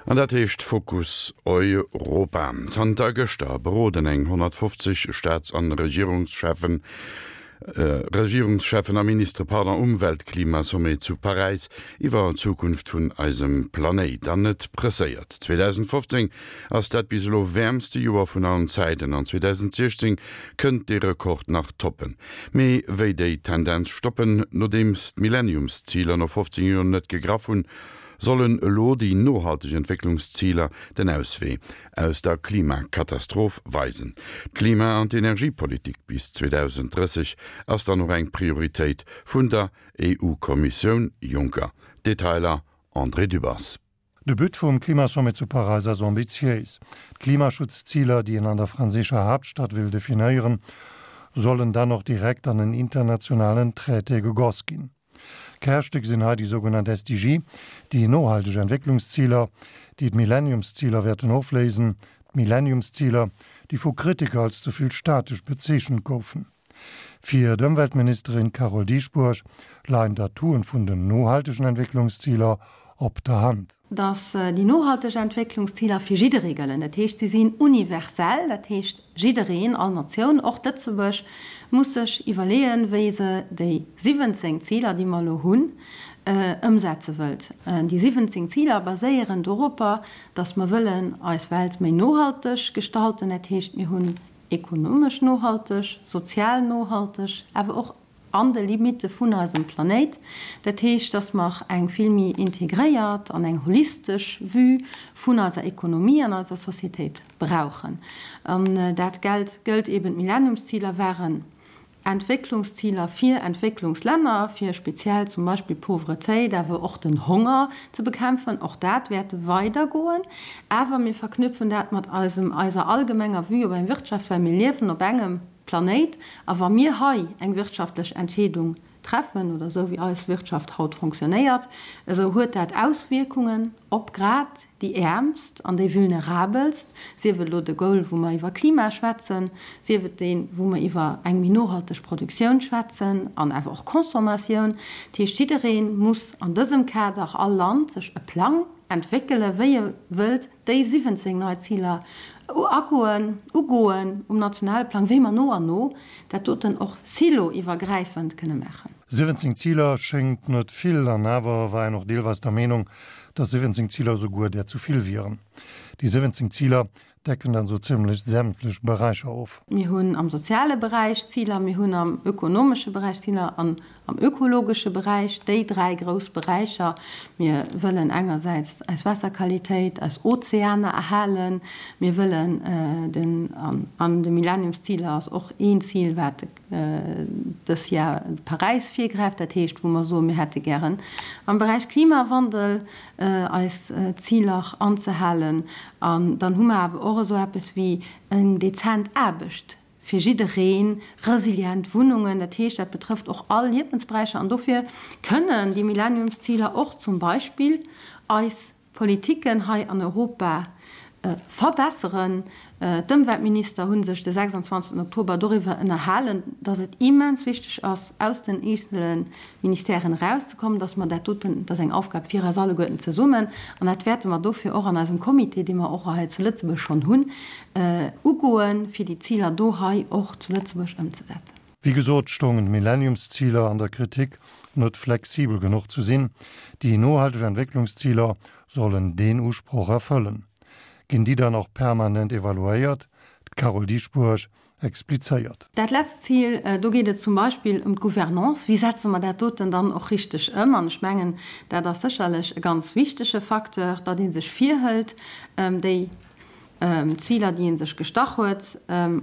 An dat heescht Fokus Europa. Zanter gëschter beroden eng 150 Staats an Regierungscheffen, Regierungscheffen a Ministere, pardon, um Weltklimasommet zu Paräis iwwer d'Zukunft vun eisem Planéit. An et presséiert. 2015 ass dat bis elo wäermste Joer vun allen Zäiten an 2016 kënnt dee Rekord nach toppen. Mee wéi déi Tendenz stoppen, nodeems d'Millenniumsziler no 15 Joer net gegraff hunn, sollen elo déi nohalteg Entwécklungsziler den Auswee aus der Klimakatastroph weisen. D'Klima an d'Energiepolitik bis 2030 ass dann och eng Prioritéit vun der EU-Kommissioun Juncker. Detailer André Dübbers. De But vum Klimasommet zu Paräis ass ambitiéis. D'Klimaschutzziler, déi een an der franséischer Haaptstad will definéieren, sollen dann och direkt an en internationalen Traité gegoss ginn. Kärstéck sinn hei déi sougenannt SDG, déi nohalteg Entwécklungsziler, déi d'Millenniumsziler wäerten ofléisen, d'Millenniumsziler, déi vu Kritiker als ze vill statesch bezeechent goufen. Fir d'Ëmweltministerin Carole Dieschbourg leien d'Atouen vun den nohaltegen Entwécklungsziler op der Hand. Datt déi nohalteg Entwécklungsziler fir jidderee gëllen. Dat heescht, si sinn universell, dat heescht jiddereen, all Natioun, och Lëtzebuerg, muss sech iwwerleeën, wéi se déi 17 Ziler, déi mer elo hunn, ëmsetze wëllt. Déi 17 Ziler baséieren doropper, datt mer wëllen eis Welt méi nohalteg gestalten. Dat heescht, mir hunn ekonomesch nohalteg, sozial nohalteg, awer och an de Limitte vun eisem Planéit. Dat heescht, dass mer eng vill méi integréiert an eng holistesch Vue vun eiser Ekonomie an eiser Societéit brauchen. An dat géllt, gëllt eben, d'Millenniumsziler waren Entwécklungsziler fir Entwécklungslänner, fir speziell zum Beispill d'Pauvretéit, awer och den Honger ze bekämpfen. Och dat wäert weidergoen. Awer mir verknüpfen dat mat eisem, eiser allgemenger Vue op eng Wirtschaft, well mir liewen op engem Planéit. A wa mir hei eng wirtschaftlech Entscheedung treffen, oder esou wéi eis Wirtschaft haut fonctionnéiert, esou huet dat Auswierkungen op grad déi Äermst an déi Vulnerabelst, sief et elo de Goal, wou mer iwwer Klima schwätzen, sief et deen, wou mer iwwer eng méi nohalteg Produktioun schwätzen an awer och Consommatioun. Dat heescht, jidderee muss an dësem Kader, all Land, sech e Plang entwéckelen, wéi e wëllt déi 17 nei Ziler agoen, ugoen um nationale Plang, wéi mer no an no dat doten och silo-iwwergräifend kënne maachen. 17 Ziler schéngt net vill, an awer war een och deelweis der Meenung, dass 17 Ziler esouguer där zu vill wieren. Déi 17 Ziler decken dann esou zimmlech sämtlech Beräicher of. Mir hunn am soziale Beräich Ziler, mir hunn am ökonomesche Beräich Ziler an am ökologesche Beräich, déi dräi grouss Beräicher. Mir wëllen engersäits eis Waasserqualitéit, eis Ozeaner erhalen, mir wëllen den, an de Millenniumsziler ass och een Zil, wat dës Jar Paräis virgräift, dat heescht, wou mer soen, mir hätte gären am Beräich Klimawandel eis Ziler anzehalen. An dann hu mer awer och esou eppes wéi eng dezent Aarbecht fir jiddereen, resilient Wunnungen, dat heescht, dat betrëfft och all Liewensberäicher. An dofir kënnen déi Millenniumsziler och zum Beispill eis Politiken hei an Europa verbesseren. D'Ëmweltminister hu sech de 26 Oktober doriwwer ënnerhalen, datt et immens wichteg ass, aus den eenzele Ministèren erauszekommen, datt mer dat doten, dat ass eng Aufgab fir eis alleguerten zesummen, an dat wäerte mer dofir och an eisem Comité, dee mer och hei zu Lëtzebuerg schonn hunn, ugoen, fir déi Ziler do hei och zu Lëtzebuerg ëmzesetzen. Wéi gesot stoungen d'Millenniumsziler an der Kritik, net flexibel genuch ze sinn. Déi nohalteg Entwécklungsziler sollen deen Usproch erfëllen. Ginn déi dann och permanent evaluéiert? D'Carole Dieschbourg explizéiert. Dat letzt Zil, do geet et zum Beispill ëm d'Gouvernance. Wéi setze mer dat doten dann och richteg ëm? An ech mengen, dat ass sécherlech e ganz wichtege Facteur, datt ee sech virhëlt, déi Ziler, déi ee sech gestach huet,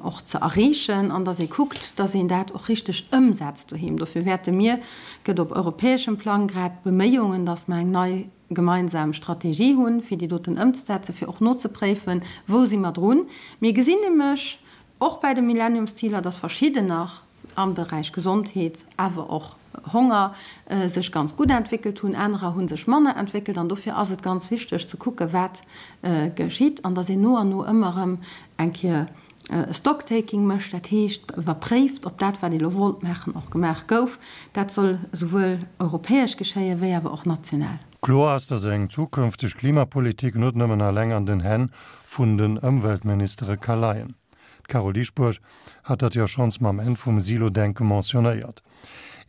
och ze erreechen an datt ee kuckt, datt een dat och richteg ëmsetzt doheem. Dofir wäerte mir, gëtt op europäeschem Plang grad Beméiungen, datt mer eng nei gemeinsam Strategie hunn, fir déi doten ëmzesetzen, fir och nozepréifen, wou si mer drun. Mir gesinn nämlech och bäi de Millenniumsziler, datt verschidden nach am Beräich Gesondheet, awer och Honger sech ganz gutt entwéckelt hunn, anerer hu sech manner entwéckelt. An dofir ass et ganz wichteg ze kucken, wat geschitt an datt een no an no ëmmer erëm eng Kéier e Stocktaking mécht, dat heescht iwwerpréift, ob dat, wat ee lo wollt maachen, och gemaach gouf. Dat soll esouwuel europäesch geschéien, wéi awer och national. Kloer ass, datt eng zukünfteg Klimapolitik net nëmmen alleng an den Hänn vun den Ëmweltministere ka leien. D'Carole Dieschbourg hat dat jo schonns mam Enn vum Silo-Denke mentionnéiert.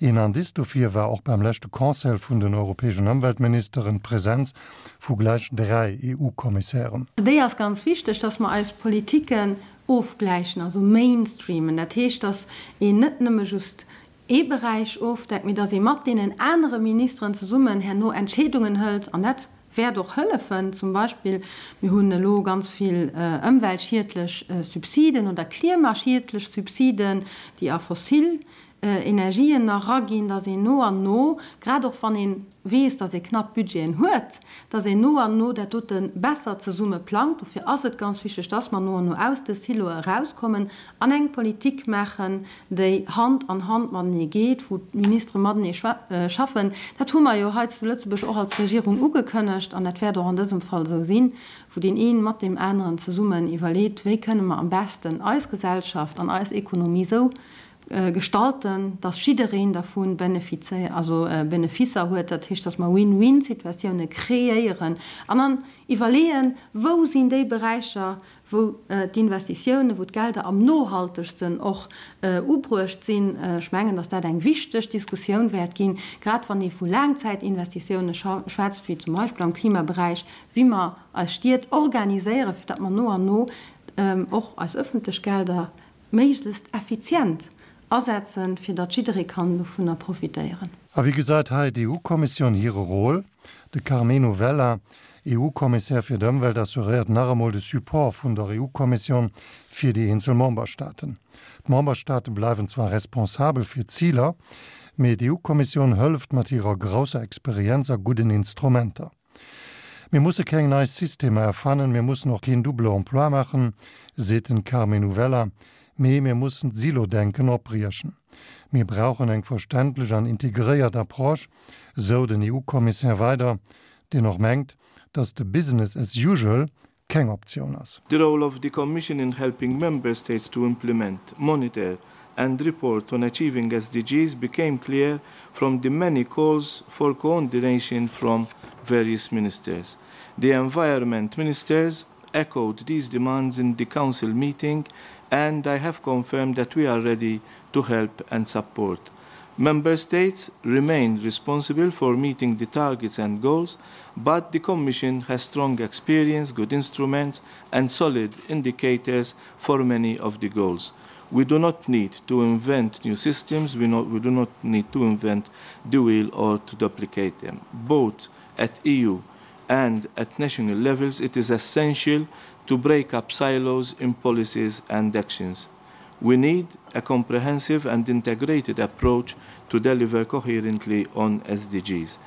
Een Indice dofir war och beim leschte Conseil vun den europäeschen Ëmweltministeren d'Presenz vu gläich 3 EU-Kommissären. Déi ass ganz wichteg, dass mer eis Politiken ofgläichen, also mainstreamen. Dat heescht, dass een net nëmme just ee Beräich ofdeckt, mee dass ee mat deenen anere Ministeren zesummen herno Entscheedungen hëlt. An dat wäert och hëllefen. Zum Beispill, mir hunn elo ganz vill ëmweltschiedlech Subsiden oder klimaschiedlech Subsiden, déi a fossil Energien eraginn, dass een no an no, grad och wann ee weess, dass ee knapp Budgeten huet, dass een no an no dat dote besser zesumme plangt. Dofir ass et ganz wichteg, dass mer no an no aus de Siloe erauskommen an eng Politik maachen, déi Hand an Hand matenee geet, wou d'Ministere matenee schaffen. Dat hu mer jo hei zu Lëtzebuerg och als Regierung ugekënnegt an dat wäert och an dësem Fall esou sinn, wou deen een mat deem aneren zesummen iwwerleet, wéi kënne mer am beschten eis Gesellschaft an eis Ekonomie esou gestalten, dass jiddereen dervu Beneficer huet, dat heescht, dass mer Win-win-Situatioune kreéieren an dann iwwerleeën, wou sinn déi Beräicher, wou d'Investitiounen, wou d'Gelder am nohaltegsten och ubruecht sinn. Ech mengen, dass dat eng wichteg Diskussioun wäert ginn, grad wann ee vu Laangzäitinvestitioune schwätzt, wéi zum Beispill am Klimaberäich, wéi mer eis Stied organiséieren, fir datt mer no an no och eis öffentlech Gelder méiglechst effizient asetzen, fir datt jidderee kann dovunner profitéieren. A wéi gesäit hei d'EU-Kommissioun hire Rôle? De Karmenu Vella, EU-Kommissär fir d'Ëmwelt, assuréiert nach emol de Support vun der EU-Kommissioun fir déi eenzel Memberstaaten. D'Memberstaate bleiwen zwar responsabel fir d'Ziler, mee d'EU-Kommissioun hëlleft mat hirer grousser Experienz a gudden Instrumenter. Mir musse keng nei Systemer erfannen, mir mussen och keen double emploi maachen, seet den Karmenu Vella, mee mir mussen d'Silo-Denken opbriechen. Mir brauchen eng verständlech an integréiert Approche, sou den EU-Kommissär weider, deen och mengt, datt de Business as usual keng Optioun ass. The role of the Commission in helping Member States to implement, monitor and report on achieving SDGs became clear from the many calls for coordination from various ministers. The environment ministers echoed these demands in the Council meeting and I have confirmed that we are ready to help and support. Member States remain responsible for meeting the targets and goals, but the Commission has strong experience, good instruments and solid indicators for many of the goals. We do not need to invent new systems, we, not, we do not need to invent the wheel or to duplicate them. Both at EU and at national levels, it is essential to break up silos in policies and actions. We need a comprehensive and integrated approach to deliver coherently on SDGs.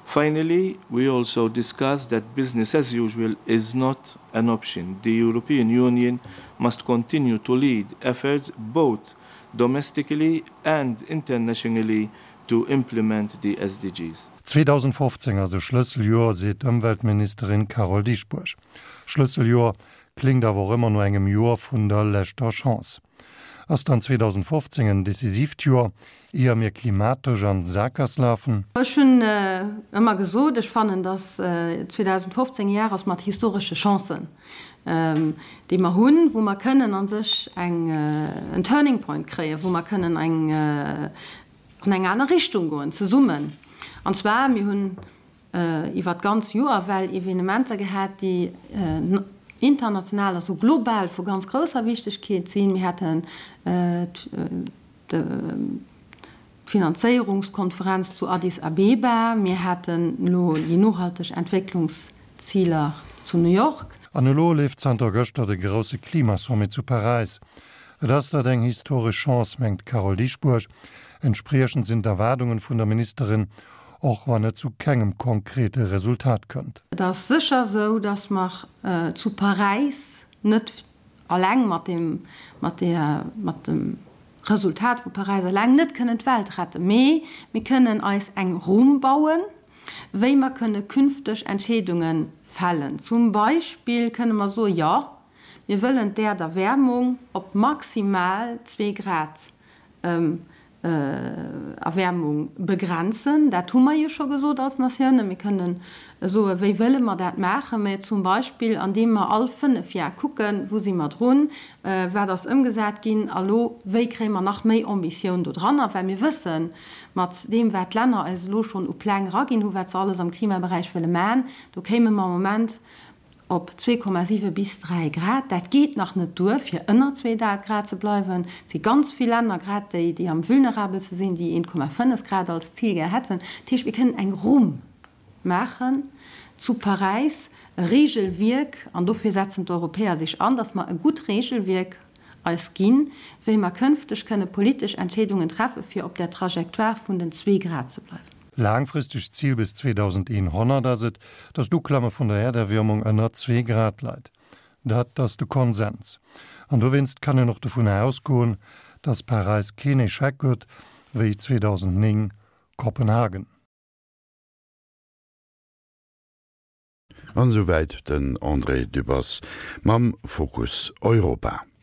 Finally, we also discussed that business as usual is not an option. The European Union must continue to lead efforts both domestically and internationally to implement the SDGs. 2015 ass e Schlësseljoer, seet d'Ëmweltministerin Carole Dieschbourg. Schlësseljoer kléngt awer och ëmmer no engem Joer vun der leschter Chance. Ass dann 2015 en decisiivt Joer, ier mir klimatesch an d'Sakgass lafen? Ech hunn ëmmer gesot, ech fannen, datt 2015 e Jar ass mat historesche Chancen, déi mer hunn, wou mer kënnen a sech eng en Turning Point kréien, wou mer kënnen eng an eng aner Richtung goen zesummen. An zwar, mir hunn iwwer d'ganz Joer ewell Evenementer gehat, déi international, also global vu ganz grousser Wichtegkeet sinn. Mir haten d'Finanzéierungskonferenz zu Addis Abeba, mir haten elo déi nohalteg Entwécklungsziler zu New York. An elo leeft zanter gëschter de grousse Klimasommet zu Paräis. Et ass dat eng historesch Chance, mengt d'Carole Dieschbourg. Entspriechend sinn d'Erwaardungen vun der Ministerin, och wann et zu kengem konkrete Resultat kënnt. Et ass sécher esou, datt mer zu Paräis net eleng mat deem, mat där, mat dem Resultat vu Paräis eleng net kënnen d'Welt retten. Mee mir kënnen eis eng Rumm bauen, wéi mer kënne künfteg Entscheedunge fällen. Zum Beispill kënne mer soen, jo, Mir wëllen d'Äerderwäermung op maximal zwee Grad. Erwäermung begrenzen. Dat hu mer jo scho gesot als Natioune. Mir kënnen soen, wéi wëlle mer dat maachen? Mä zum Beispill andeem mer all fënnef Jar kucken, wou si mer drun, wat ass ëmgesat ginn a lo wéi kréie mer nach méi Ambitioun do dranner, well mir wëssen, mat deem wat d'Länner eis elo schonn u Pläng eraginn hu wat se alles am Klimaberäich wëlle man, do kéime mer am Moment op 2,7 bis 3 Grad. Dat geet nach net duer, fir ënner 2 Grad ze bleiwen. Et si ganz vill Länner, grad déi, déi am vulnerabelste sinn, déi 1,5 Grad als Zil gär hätten. Dat heescht, mir kënnen eng Rumm maachen zu Paräis, e Regelwierk, an dofir setzen d'Europäer sech an, datt mer e gutt Regelwierk eis ginn, wéi mer kënfteg kënne politesch Entscheedungen treffe fir op der Trajectoire vun den zwee Grad ze bleiwen. Laangfristegt Zil bis 2100 ass et, datt d'Uklamme vun der Äerderwiermung ënner zwee Grad leit. Dat ass de Konsens. An dowéinst kann een och dovunner ausgoen, datt Paräis keen Echec gëtt wéi 2009 Kopenhagen. An esouwäit den André Dübbers mam Fokus Europa.